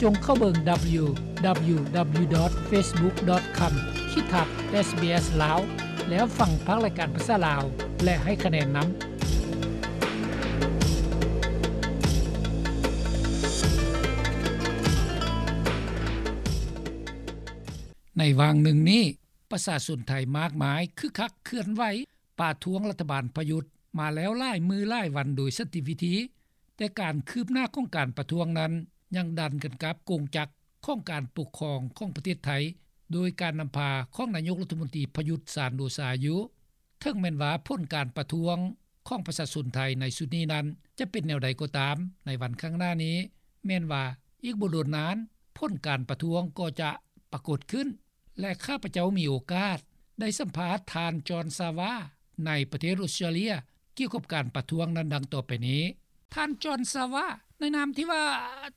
ຈົ່ງເຂົ້າເບິ່ງ www.facebook.com/sbslao ແລ້ວຟັງພາກລາຍການພາສາລາວ ແລະ ໃຫ້ຄະແນນນຳ. ໃນຫວ່າງໜຶ່ງນີ້, ປະຊາຊົນໄທມາກມາຍຄຶກຄັກເຄື່ອນໄຫວປະທ້ວງລັດຖະບານປະຍຸດມາແລ້ວຫຼາຍມື້ຫຼາຍວັນໂດຍສັນຕິວິທີ, ແຕ່ການຄືບໜ້າຂອງການປະທ້ວງນັ້ນຍັງດັນກັນກັບກົງຈັກຂອງການປົກຄອງຂອງປະເທດໄທ ໂດຍການນຳພາຂອງນາຍົກລັດຖະມົນຕີປະຍຸດ ຈັນໂອຊາ ຢູ່. ເຖິງແມ່ນວ່າຜົນການປະທ້ວງຂອງປະຊາຊົນໄທໃນຊຸດນີ້ນັ້ນຈະເປັນແນວໃດກໍຕາມ, ໃນວັນຂ້າງໜ້ານີ້ ແມ່ນວ່າອີກບໍ່ດົນນານ ຜົນການປະທ້ວງກໍຈະປາກົດຂຶ້ນ ແລະ ຂ້າພະເຈົ້າມີໂອກາດໄດ້ສຳພາດທ່ານ ຈອນ ຊາວາ ໃນປະເທດອົດສະຕຣາເລຍ ກ່ຽວກັບການປະທ້ວງນັ້ນດັ່ງຕໍ່ໄປນີ້. ທ່ານ ຈອນ ຊາວາ, ໃນນາມທີ່ວ່າ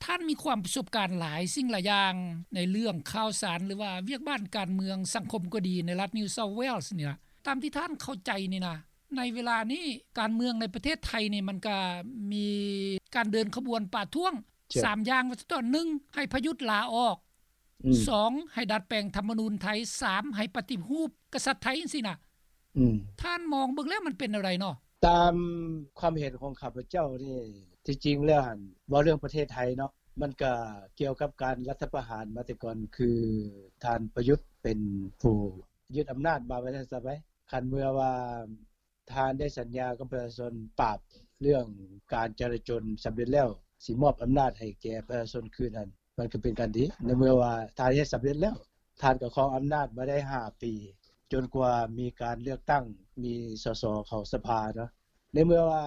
ທ່ານມີຄວາມປະສົບການຫຼາຍສິ່ງຫຼາຍຢ່າງ ໃນເລື່ອງຂ່າວສານ ຫຼືວ່າວຽກບ້ານການເມືອງສັງຄົມກໍດີ ໃນລັດ New South Wales ນີ້ນະ, ຕາມທີ່ທ່ານເຂົ້າໃຈນີ້ນະ, ໃນເວລານີ້ການເມືອງໃນປະເທດໄທນີ້ ມັນກະມີການເດີນຂະບວນປະທ້ວງ ສາມຢ່າງວ່າຊັ້ນເຖາະ, ໜຶ່ງ ໃຫ້ປະຍຸດລາອອກ, ສອງ ໃຫ້ດັດແປງທຳມະນູນໄທ, ສາມ ໃຫ້ປະຕິຮູບກະສັດໄທ ຈັ່ງຊີ້ນະ. ທ່ານມອງເບິ່ງແລ້ວມັນເປັນແນວໃດເນາະ? ຕາມຄວາມເຫັນຂອງຂ້າພະເຈົ້ານີ້ ທີ່ຈິງແລ້ວຫັ້ນ ເວົ້າເລື່ອງປະເທດໄທເນາະ, ມັນກະກ່ຽວກັບການລັດຖະປະຫານມາແຕ່ກ່ອນ, ຄືທ່ານປະຍຸດເປັນຜູ້ຍຶດອຳນາດມາ ວ່າຊັ້ນຊະໄປ. ຄັນເມື່ອວ່າ ທ່ານໄດ້ສັນຍາກັບປະຊາຊົນປາບເລື່ອງການຈະລາຈົນສຳເລັດແລ້ວ, ຊິມອບອຳນາດໃຫ້ແກ່ປະຊາຊົນຄືນຫັ້ນ, ມັນກໍເປັນການດີ. ໃນເມື່ອວ່າທ່ານເຮັດສຳເລັດແລ້ວ, ທ່ານກໍຄອງອຳນາດມາໄດ້ຫ້າປີ ຈົນກວ່າມີການເລືອກຕັ້ງ, ມີ ສສ ເຂົ້າສະພາເນາະ. ໃນເມື່ອວ່າ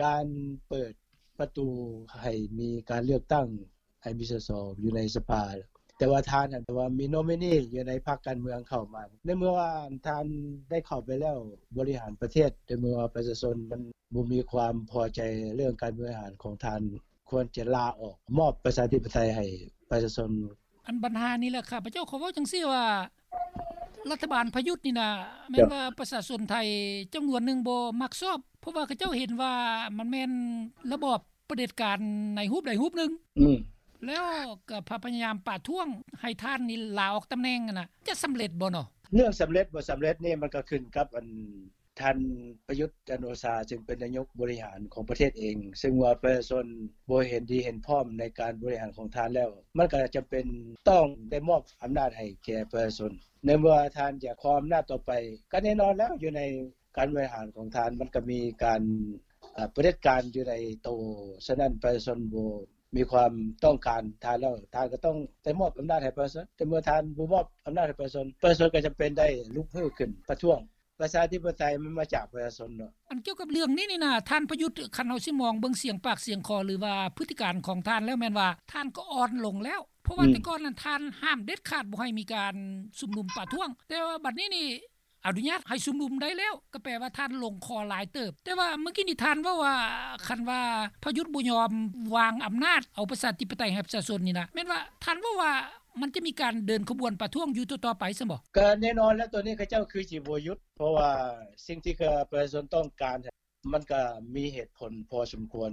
ການເປີດປະຕູໃຫ້ມີການເລືອກຕັ້ງ ໃຫ້ມີ ສສ ຢູ່ໃນສະພາ, ແຕ່ວ່າທ່ານຫັ້ນ ແຕ່ວ່າມີໂນມິນີຢູ່ໃນພັກການເມືອງເຂົ້າມາ. ໃນເມື່ອວ່າທ່ານໄດ້ເຂົ້າໄປແລ້ວບໍລິຫານປະເທດ, ໃນເມື່ອວ່າປະຊາຊົນມັນບໍ່ມີຄວາມພໍໃຈເລື່ອງການບໍລິຫານຂອງທ່ານ, ຄວນຈະລາອອກ, ມອບປະຊາທິປະໄຕໃຫ້ປະຊາຊົນ. ອັນບັນຫານີ້ແຫຼະ ຂ້າພະເຈົ້າຂໍເວົ້າຈັ່ງຊີ້ວ່າ ລັດຖະບານປະຍຸດນີ້ນະ ແມ່ນວ່າປະຊາຊົນໄທຈຳນວນໜຶ່ງບໍ່ມັກຊອບ, ເພາະວ່າເຂົາເຈົ້າເຫັນວ່າມັນແມ່ນລະບອບ ປະເດັດການໃນຮູບໃດຮູບໜຶ່ງ. ອືມ ແລ້ວກໍພະ ພະຍາຍາມປະທ້ວງໃຫ້ທ່ານນີ້ລາອອກຕຳແໜ່ງຫັ້ນນະ ຈະສຳເລັດບໍ່ເນາະ? ເລື່ອງສຳເລັດບໍ່ສຳເລັດນີ້ ມັນກໍຂຶ້ນກັບອັນ ທ່ານປະຍຸດ ຈັນໂອຊາ ຊຶ່ງເປັນນາຍົກບໍລິຫານຂອງປະເທດເອງ, ຊຶ່ງວ່າປະຊາຊົນບໍ່ເຫັນດີເຫັນພ້ອມໃນການບໍລິຫານຂອງທ່ານແລ້ວ, ມັນກໍຈຳເປັນຕ້ອງໄດ້ມອບອຳນາດໃຫ້ແກ່ປະຊາຊົນ. ໃນເມື່ອທ່ານຢາກຄອງອຳນາດຕໍ່ໄປ, ກໍແນ່ນອນແລ້ວ ຢູ່ໃນ ການບໍລິຫານຂອງທ່ານ ມັນກໍມີການ ເອີ ປະເດັດການຢູ່ໃນໂຕ, ສະນັ້ນປະຊາຊົນບໍ່ມີຄວາມຕ້ອງການທ່ານແລ້ວ, ທ່ານກໍຕ້ອງໄດ້ມອບອຳນາດໃຫ້ປະຊາຊົນ. ແຕ່ເມື່ອທ່ານບໍ່ມອບອຳນາດໃຫ້ປະຊາຊົນ, ປະຊາຊົນກໍຈຳເປັນໄດ້ລຸກຮືຂຶ້ນປະທ້ວງ. ປະຊາທິປະໄຕມັນມາຈາກປະຊາຊົນເນາະ. ອັນກ່ຽວກັບເລື່ອງນີ້ນີ້ນະ, ທ່ານປະຍຸດ ຄັນເຮົາຊິມອງເບິ່ງສຽງປາກສຽງຄໍ ຫຼືວ່າພຶດຕິການຂອງທ່ານແລ້ວ ແມ່ນວ່າທ່ານກໍອ່ອນລົງແລ້ວ. ເພາະວ່າ ອືມ ແຕ່ກ່ອນນັ້ນທ່ານຫ້າມເດັດຂາດບໍ່ໃຫ້ມີການຊຸມນຸມປະທ້ວງ, ແຕ່ວ່າບັດນີ້ນີ້ ອະນຸຍາດໃຫ້ຊຸມນຸມໄດ້ແລ້ວ, ກໍແປວ່າທ່ານລົງຄໍຫຼາຍເຕີບ. ແຕ່ວ່າມື້ກີ້ນີ້ທ່ານເວົ້າວ່າ ຄັນວ່າປະຍຸດບໍ່ຍອມວາງອຳນາດເອົາປະຊາທິປະໄຕໃຫ້ປະຊາຊົນນີ້ນະ, ແມ່ນວ່າທ່ານເວົ້າວ່າມັນຈະມີການເດີນຂະບວນປະທ້ວງຢູ່ຕໍ່ໆໄປຊັ້ນບໍ່? ກໍແນ່ນອນແລ້ວ, ໂຕນີ້ເຂົາເຈົ້າຄືຊິບໍ່ຢຸດ, ເພາະວ່າສິ່ງທີ່ປະຊາຊົນຕ້ອງການ ມັນກໍມີເຫດຜົນພໍສົມຄວນ.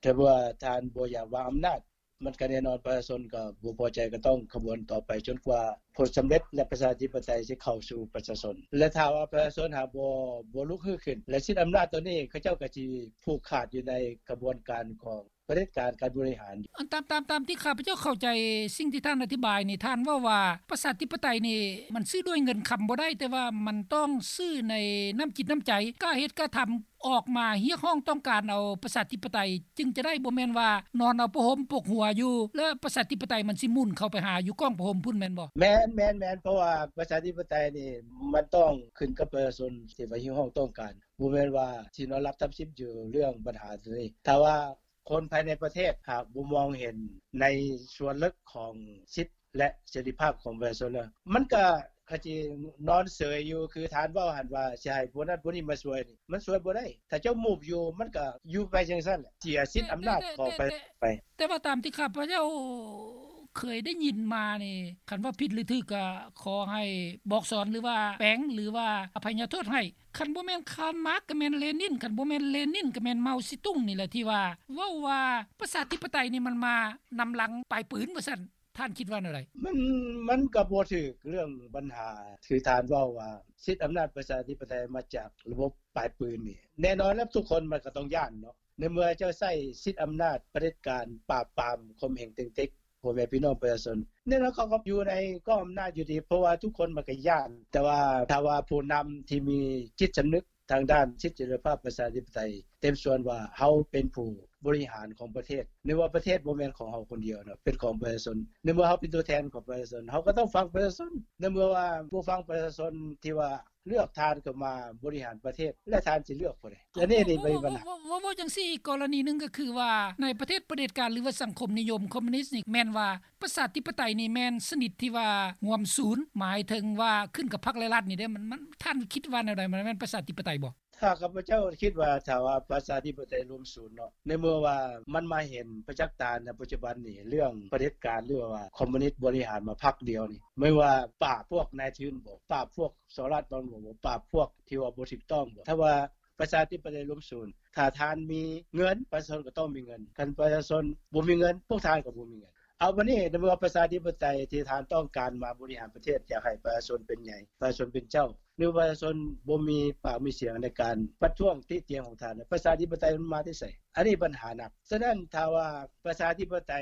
ຖ້າວ່າທ່ານບໍ່ຢາກວາງອຳນາດ, ມັນກໍແນ່ນອນປະຊາຊົນກໍບໍ່ພໍໃຈ, ກໍຕ້ອງຂະບວນຕໍ່ໄປຈົນກວ່າຜົນສຳເລັດ ແລະ ປະຊາທິປະໄຕຈະເຂົ້າສູ່ປະຊາຊົນ. ແລະ ຖ້າວ່າປະຊາຊົນຫາກບໍ່ ບໍ່ລຸກຮືຂຶ້ນ ແລະ ຊິດອຳນາດໂຕນີ້, ເຂົາເຈົ້າກໍຊິຜູກຂາດຢູ່ໃນຂະບວນການຂອງປະເດັດການການບໍລິຫານ. ອັນຕາມ ຕາມ ຕາມທີ່ຂ້າພະເຈົ້າເຂົ້າໃຈສິ່ງທີ່ທ່ານອະທິບາຍນີ້, ທ່ານເວົ້າວ່າປະຊາທິປະໄຕນີ້ມັນຊື້ດ້ວຍເງິນຄຳບໍ່ໄດ້, ແຕ່ວ່າມັນຕ້ອງຊື້ໃນນ້ຳຈິດນ້ຳໃຈ, ກາເຮັດກາທຳ ອອກມາຮຽກຮ້ອງຕ້ອງການເອົາປະຊາທິປະໄຕຈຶ່ງຈະໄດ້, ບໍ່ແມ່ນວ່ານອນເອົາຜ້າຫົ່ມປົກຫົວຢູ່ ແລ້ວປະຊາທິປະໄຕມັນຊິໝຸນເຂົ້າໄປຫາຢູ່ກ້ອງຜ້າຫົ່ມພຸ້ນແມ່ນບໍ່? ແມ່ນ, ແມ່ນ, ແມ່ນ, ເພາະວ່າປະຊາທິປະໄຕນີ້ມັນຕ້ອງຂຶ້ນກັບປະຊາຊົນທີ່ວ່າຮຽກຮ້ອງຕ້ອງການ, ບໍ່ແມ່ນວ່າຊິນອນຫຼັບທັບສິບຢູ່ເລື່ອງບັນຫາໂຕນີ້. ຖ້າວ່າຄົນພາຍໃນປະເທດຫາກບໍ່ມອງເຫັນໃນສ່ວນເລິກຂອງສິດ ແລະ ເສລີພາບຂອງປະຊາຊົນແລ້ວ, ມັນກະ ຂະຈິນອນເສີຍຢູ່, ຄືທ່ານເວົ້າຫັ້ນວ່າຊິໃຫ້ຜູ້ນັ້ນຜູ້ນີ້ມາຊ່ວຍນີ້, ມັນຊ່ວຍບໍ່ໄດ້. ຖ້າເຈົ້າມູບຢູ່, ມັນກະຢູ່ໄປຈັ່ງຊັ້ນແຫຼະ, ເສຍສິດອຳນາດຂອງປະຊາຊົນໄປ. ແຕ່ ແຕ່ ແຕ່ ແຕ່ວ່າຕາມທີ່ຂ້າພະເຈົ້າ ເຄີຍໄດ້ຍິນມານີ້ ຄັນວ່າຜິດຫຼືຖືກກໍຂໍໃຫ້ບອກສອນ ຫຼືວ່າແປງ ຫຼືວ່າອະໄພຍະໂທດໃຫ້. ຄັນບໍ່ແມ່ນຄານມາກ ກໍແມ່ນເລນິນ, ຄັນບໍ່ແມ່ນເລນິນ ກໍແມ່ນເມົາຊີຕຸງນີ້ແຫຼະ ທີ່ວ່າເວົ້າວ່າປະຊາທິປະໄຕນີ້ ມັນມານຳຫຼັງປາຍປືນວ່າຊັ້ນ. ທ່ານຄິດວ່າແນວໃດ? ມັນ ມັນກໍບໍ່ຖືກເລື່ອງບັນຫາທີ່ທ່ານເວົ້າວ່າ ສິດອຳນາດປະຊາທິປະໄຕມາຈາກລະບົບປາຍປືນນີ້. ແນ່ນອນແລ້ວ ທຸກຄົນມັນກໍຕ້ອງຢ້ານເນາະ ໃນເມື່ອເຈົ້າໃຊ້ສິດອຳນາດຜະເດັດການປາບປາມຂົ່ມເຫງເຕັງເຕັກພໍ່ແມ່ພີ່ນ້ອງປະຊາຊົນ, ແນ່ນອນເຂົາກໍຢູ່ໃນກອງອຳນາດຢູ່ດີ ເພາະວ່າທຸກຄົນມັນກໍຢ້ານ. ແຕ່ວ່າຖ້າວ່າຜູ້ນຳທີ່ມີຈິດສຳນຶກ ທາງດ້ານສິດເສລີພາບປະຊາທິປະໄຕ ເຕັມສ່ວນວ່າເຮົາເປັນຜູ້ບໍລິຫານຂອງປະເທດ, ໃນເມື່ອປະເທດບໍ່ແມ່ນຂອງເຮົາຄົນດຽວເນາະ ເປັນຂອງປະຊາຊົນ, ໃນເມື່ອເຮົາເປັນຕົວແທນຂອງປະຊາຊົນ ເຮົາກໍຕ້ອງຟັງປະຊາຊົນ. ໃນເມື່ອວ່າບໍ່ຟັງປະຊາຊົນທີ່ວ່າເລືອກທ່ານເຂົ້າມາບໍລິຫານປະເທດ ແລະທ່ານຊິເລືອກຜູ້ໃດ? ອັນນີ້ນີ້ເປັນບັນຫາ. ເວົ້າ ເວົ້າ ເວົ້າຈັ່ງຊີ້ ອີກກໍລະນີໜຶ່ງກໍຄືວ່າ ໃນປະເທດປະເດັດການ ຫຼືວ່າສັງຄົມນິຍົມຄອມມູນິດນີ້ ແມ່ນວ່າ ປະຊາທິປະໄຕນີ້ແມ່ນຊະນິດທີ່ວ່າຮ່ວມສູນ ໝາຍເຖິງວ່າຂຶ້ນກັບພັກ ແລະ ລັດນີ້ເດ້. ມັນ ມັນ ທ່ານຄິດວ່າແນວໃດ? ມັນແມ່ນປະຊາທິປະໄຕບໍ່? ຖ້າຂ້າພະເຈົ້າຄິດວ່າ ຖ້າວ່າປະຊາທິປະໄຕລວມສູນເນາະ ໃນເມື່ອວ່າມັນມາເຫັນປະຈັກຕາໃນປັດຈຸບັນນີ້ ເລື່ອງປະເດັດການ ຫຼືວ່າຄອມມູນິດບໍລິຫານມາພັກດຽວນີ້ ແມ່ນວ່າປາບພວກນາຍທຶນບໍ? ປາບພວກສໍ້ລາດບັງຫຼວງບໍ? ປາບພວກທີ່ວ່າບໍ່ຖືກຕ້ອງບໍ? ຖ້າວ່າປະຊາທິປະໄຕລວມສູນ ຖ້າທ່ານມີເງິນ ປະຊາຊົນກໍຕ້ອງມີເງິນ, ຄັນປະຊາຊົນບໍ່ມີເງິນ ພວກທ່ານກໍບໍ່ມີເງິນ. ເອົາ ບາດນີ້ ໃນເມື່ອປະຊາທິປະໄຕທີ່ທ່ານຕ້ອງການມາບໍລິຫານປະເທດ ຢາກໃຫ້ປະຊາຊົນເປັນໃຫຍ່ ປະຊາຊົນເປັນເຈົ້າ ຫຼືປະຊາຊົນບໍ່ມີປາກມີສຽງໃນການປະທ້ວງຕິຕຽນຂອງທ່ານ ປະຊາທິປະໄຕມັນມາແຕ່ໃສ? ອັນນີ້ບັນຫາໜັກ. ສະນັ້ນ ຖ້າວ່າປະຊາທິປະໄຕ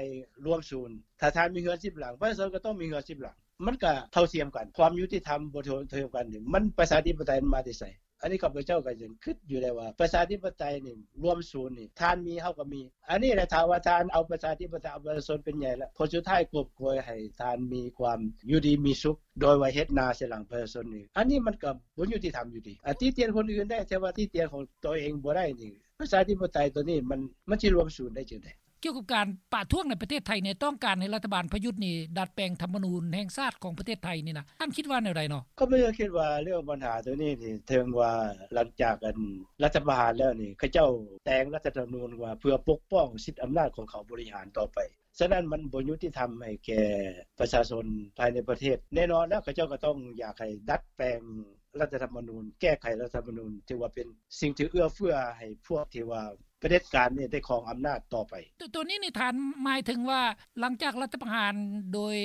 ລວມສູນ ຖ້າທ່ານມີເຮືອນສິບຫຼັງ ປະຊາຊົນກໍຕ້ອງມີເຮືອນສິບຫຼັງ ມັນກໍເທົ່າທຽມກັນ. ຄວາມຍຸຕິທຳບໍ່ເທົ່າທຽມກັນນີ້ ມັນປະຊາທິປະໄຕມັນມາແຕ່ໃສ? ອັນນີ້ຂ້າພະເຈົ້າກໍຍັງຄິດຢູ່ໄດ້ວ່າ ປະຊາທິປະໄຕນີ້ລວມສູນນີ້ ທ່ານມີ ເຮົາກໍມີ. ອັນນີ້ແຫຼະ ຖ້າວ່າທ່ານເອົາປະຊາທິປະໄຕ ເອົາປະຊາຊົນເປັນໃຫຍ່ແລ້ວ ຜົນສຸດທ້າຍກວບໂກຍໃຫ້ທ່ານມີຄວາມຢູ່ດີມີສຸກ ໂດຍວ່າເຮັດໜ້າໃສ່ຫຼັງປະຊາຊົນນີ້ ອັນນີ້ມັນກໍບໍ່ຍຸຕິທຳຢູ່ດີ. ອາ ຕິຕຽນຄົນອື່ນໄດ້ ແຕ່ວ່າຕິຕຽນຂອງຕົວເອງບໍ່ໄດ້ນີ້ ປະຊາທິປະໄຕຕົວນີ້ມັນ ມັນຊິລວມສູນໄດ້ຈັ່ງໃດ? ກ່ຽວກັບການປະທ້ວງໃນປະເທດໄທນີ້ ຕ້ອງການໃຫ້ລັດຖະບານປະຍຸດນີ້ດັດແປງທຳມະນູນແຫ່ງຊາດຂອງປະເທດໄທນີ້ນະ ທ່ານຄິດວ່າແນວໃດເນາະ? ຂ້າພະເຈົ້າຄິດວ່າເລື່ອງບັນຫາຕົວນີ້ນີ້ ເຖິງວ່າຫຼັງຈາກອັນລັດຖະປະຫານແລ້ວນີ້ ເຂົາເຈົ້າແຕ່ງລັດຖະທຳມະນູນວ່າເພື່ອປົກປ້ອງສິດອຳນາດຂອງເຂົາບໍລິຫານຕໍ່ໄປ. ສະນັ້ນມັນບໍ່ຍຸຕິທຳໃຫ້ແກ່ປະຊາຊົນພາຍໃນປະເທດ. ແນ່ນອນແລ້ວ ເຂົາເຈົ້າກໍຕ້ອງຢາກໃຫ້ດັດແປງລັດຖະທຳມະນູນ, ແກ້ໄຂລັດຖະທຳມະນູນ ຖືວ່າເປັນສິ່ງທີ່ເອື້ອເຟື້ອໃຫ້ພວກທີ່ວ່າ ປະເດັດການນີ້ໄດ້ຄອງອຳນາດຕໍ່ໄປ. ໂຕ ໂຕນີ້ນີ້ທ່ານໝາຍເຖິງວ່າ ຫຼັງຈາກລັດຖະປະຫານໂດຍ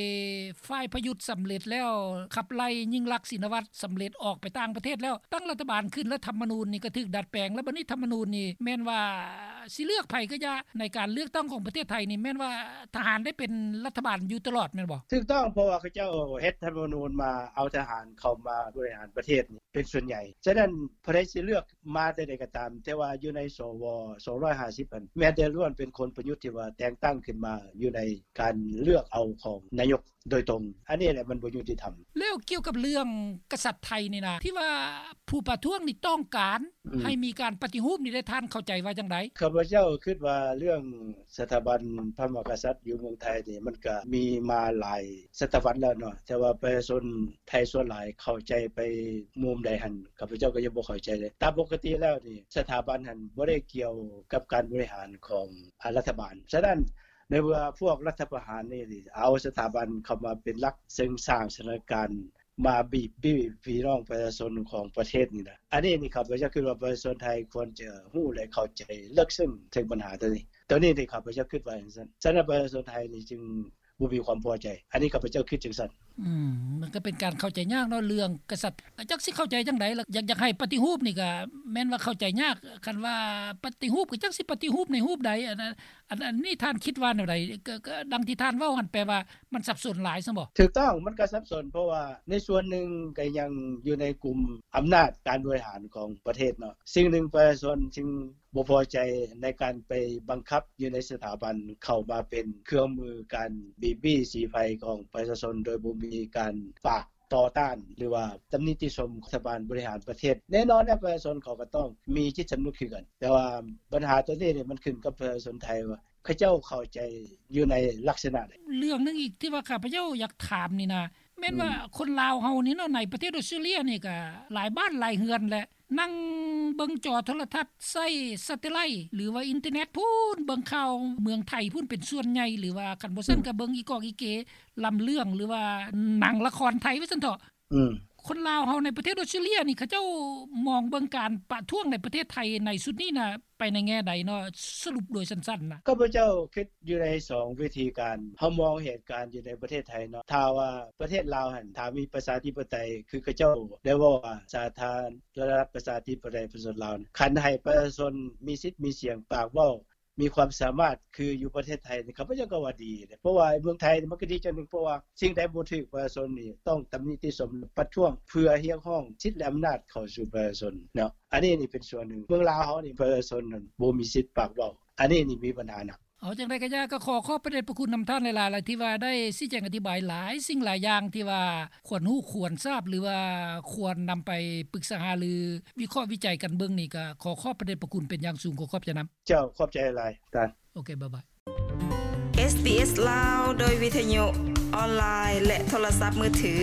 ຝ່າຍປະຍຸດສຳເລັດແລ້ວ ຂັບໄລ່ຍິ່ງລັກ ຊີນະວັດ ສຳເລັດອອກໄປຕ່າງປະເທດແລ້ວ ຕັ້ງລັດຖະບານຂຶ້ນ ແລະ ທຳມະນູນນີ້ກໍຖືກດັດແປງ ແລ້ວບັດນີ້ທຳມະນູນນີ້ແມ່ນວ່າຊິເລືອກໃຜກໍຢ່າ ໃນການເລືອກຕັ້ງຂອງປະເທດໄທນີ້ ແມ່ນວ່າທະຫານໄດ້ເປັນລັດຖະບານຢູ່ຕະຫຼອດແມ່ນບໍ່? ຖືກຕ້ອງ ເພາະວ່າເຂົາເຈົ້າເຮັດທຳມະນູນມາເອົາທະຫານເຂົ້າມາບໍລິຫານປະເທດນີ້ ເປັນສ່ວນໃຫຍ່. ສະນັ້ນ ຜູ້ໃດຊິເລືອກມາແຕ່ໃດກໍຕາມ ແຕ່ວ່າຢູ່ໃນ ສວ ສອງຮ້ອຍຫ້າສິບຫັ້ນ ແມ່ນແຕ່ລ້ວນເປັນຄົນປະຍຸດທີ່ວ່າແຕ່ງຕັ້ງຂຶ້ນມາຢູ່ໃນການເລືອກເອົາຂອງນາຍົກໂດຍຕົງ. ອັນນີ້ແຫຼະມັນບໍ່ຍຸຕິທຳ. ແລ້ວກ່ຽວກັບເລື່ອງກະສັດໄທນີ້ນະ ທີ່ວ່າຜູ້ປະທ້ວງນີ້ຕ້ອງການ ອືມ ໃຫ້ມີການປະຕິຮູບນີ້ ແລະ ທ່ານເຂົ້າໃຈວ່າຈັ່ງໃດ? ຂ້າພະເຈົ້າຄິດວ່າເລື່ອງ ສະຖາບັນພະມະຫາກະສັດຢູ່ເມືອງໄທນີ້ ມັນກະມີມາຫຼາຍສະຕະວັດແລ້ວເນາະ ແຕ່ວ່າປະຊາຊົນໄທສ່ວນຫຼາຍເຂົ້າໃຈໄປມຸມໃດຫັ້ນ ຂ້າພະເຈົ້າກໍຍັງບໍ່ເຂົ້າໃຈເລີຍ. ຕາມປົກກະຕິແລ້ວນີ້ ສະຖາບັນຫັ້ນບໍ່ໄດ້ກ່ຽວກັບການບໍລິຫານຂອງ ອາ ລັດຖະບານ. ສະນັ້ນ ໃນເມື່ອພວກລັດຖະປະຫານນີ້ເອົາສະຖາບັນເຂົ້າມາເປັນຫຼັກ ເຊິ່ງສ້າງສະຖານະການ ມາບີບບີບພີ່ນ້ອງປະຊາຊົນຂອງປະເທດນີ້ນະ. ອັນນີ້ນີ້ ຂ້າພະເຈົ້າຄິດວ່າປະຊາຊົນໄທຄວນຈະຮູ້ ແລະ ເຂົ້າໃຈເລິກເຊິ່ງເຖິງບັນຫາຕົວນີ້. ຕົວນີ້ນີ້ ຂ້າພະເຈົ້າຄິດວ່າຈັ່ງຊັ້ນ. ສະນັ້ນ ປະຊາຊົນໄທນີ້ຈຶ່ງບໍ່ມີຄວາມພໍໃຈ. ອັນນີ້ ຂ້າພະເຈົ້າຄິດຈັ່ງຊັ້ນ. ອືມ ມັນກໍເປັນການເຂົ້າໃຈຍາກເນາະ ເລື່ອງກະສັດ ຈັກຊິເຂົ້າໃຈຈັ່ງໃດລະ. ຢາກ ຢາກໃຫ້ປະຕິຮູບນີ້ກໍແມ່ນວ່າເຂົ້າໃຈຍາກ. ຄັນວ່າປະຕິຮູບ ກໍຈັກຊິປະຕິຮູບໃນຮູບໃດ. ອັນ ອັນ ອັນນີ້ທ່ານຄິດວ່າແນວໃດ? ກໍ ກໍດັ່ງທີ່ທ່ານເວົ້າຫັ້ນ ແປວ່າ ມັນສັບສົນຫຼາຍຊັ້ນບໍ? ຖືກຕ້ອງ ມັນກໍສັບສົນ ເພາະວ່າໃນສ່ວນໜຶ່ງກໍຍັງຢູ່ໃນກຸ່ມອຳນາດການບໍລິຫານຂອງປະເທດເນາະ. ສິ່ງໜຶ່ງປະຊາຊົນຈຶ່ງບໍ່ພໍໃຈໃນການໄປບັງຄັບຢູ່ໃນສະຖາບັນ ເຂົ້າມາເປັນເຄື່ອງມືການບີບບີສີໄຟຂອງປະຊາຊົນ ໂດຍບໍ່ມີການປາກຕໍ່ຕ້ານ ຫຼືວ່າຕຳນິຕິຊົມລັດຖະບານບໍລິຫານປະເທດ. ແນ່ນອນແລ້ວ ປະຊາຊົນເຂົາກໍຕ້ອງມີຈິດສຳນຶກຄືກັນ ແຕ່ວ່າບັນຫາຕົວນີ້ນີ້ ມັນຂຶ້ນກັບປະຊາຊົນໄທວ່າ ເຂົາເຈົ້າເຂົ້າໃຈຢູ່ໃນລັກສະນະໃດ? ເລື່ອງໜຶ່ງອີກທີ່ວ່າຂ້າພະເຈົ້າຢາກຖາມນີ້ນະ ແມ່ນວ່າ ອືມ ຄົນລາວເຮົານີ້ເນາະ ໃນປະເທດອອສເຕຣເລຍນີ້ກະຫຼາຍບ້ານຫຼາຍເຮືອນແຫຼະ ນັ່ງ ເບິ່ງຈໍໂທລະທັດ ໃຊ້ແຊັດເທໄລ ຫຼືວ່າອິນເຕີເນັດພຸ້ນ ເບິ່ງຂ່າວເມືອງໄທພຸ້ນເປັນສ່ວນໃຫຍ່ ຫຼືວ່າຄັນບໍ່ຊັ້ນກໍເບິ່ງອີກອກອີເກ ລຳເລື່ອງ ຫຼືວ່າໜັງລະຄອນໄທວ່າຊັ້ນເຖາະ. ອືມ ຄົນລາວເຮົາໃນປະເທດອອສເຕຣເລຍນີ້ ເຂົາເຈົ້າມອງເບິ່ງການປະທ້ວງໃນປະເທດໄທໃນຊຸດນີ້ນະ ໄປໃນແງ່ໃດເນາະ? ສະຫຼຸບໂດຍສັ້ນໆນະ. ຂ້າພະເຈົ້າຄິດຢູ່ໃນສອງວິທີການ ເຮົາມອງເຫດການຢູ່ໃນປະເທດໄທເນາະ ຖ້າວ່າປະເທດລາວຫັ້ນ ຖ້າມີປະຊາທິປະໄຕ ຄືເຂົາເຈົ້າໄດ້ເວົ້າວ່າ ສາທາລະນະລັດປະຊາທິປະໄຕປະຊາຊົນລາວ ຄັນໃຫ້ປະຊາຊົນມີສິດມີສຽງປາກເວົ້າ ມີຄວາມສາມາດຄືຢູ່ປະເທດໄທນີ້ ຂ້າພະເຈົ້າກໍວ່າດີເດ້ ເພາະວ່າເມືອງໄທນີ້ມັນກໍດີຈັ່ງໜຶ່ງ ເພາະວ່າສິ່ງໃດບໍ່ຖືກປະຊາຊົນນີ້ຕ້ອງຕຳນິຕິຊົມ ປະທ້ວງເພື່ອຮຽກຮ້ອງສິດ ແລະ ອຳນາດເຂົ້າສູ່ປະຊາຊົນເນາະ. ອັນນີ້ນີ້ເປັນສ່ວນໜຶ່ງ ເມືອງລາວເຮົານີ້ປະຊາຊົນນັ້ນບໍ່ມີສິດປາກເວົ້າ ອັນນີ້ນີ້ມີບັນຫາໜັກ. ເອົາຈັ່ງໃດກໍຢ່າ ກໍຂໍຂອບພະເດດພະຄຸນນຳທ່ານຫຼາຍໆ ທີ່ວ່າໄດ້ຊີ້ແຈງອະທິບາຍຫຼາຍສິ່ງຫຼາຍຢ່າງ ທີ່ວ່າຄວນຮູ້ຄວນຊາບ ຫຼືວ່າຄວນນຳໄປປຶກສາຫາລື ວິເຄາະວິໄຈກັນເບິ່ງນີ້ ກໍຂໍຂອບພະເດດພະຄຸນເປັນຢ່າງສູງ ຂໍຂອບໃຈນຳ. ເຈົ້າ ຂອບໃຈຫຼາຍທ່ານ. ໂອເຄ ບາຍບາຍ. ເອສບີເອສ ລາວ ໂດຍວິທະຍຸ ອອນລາຍ ແລະ ໂທລະສັບມືຖື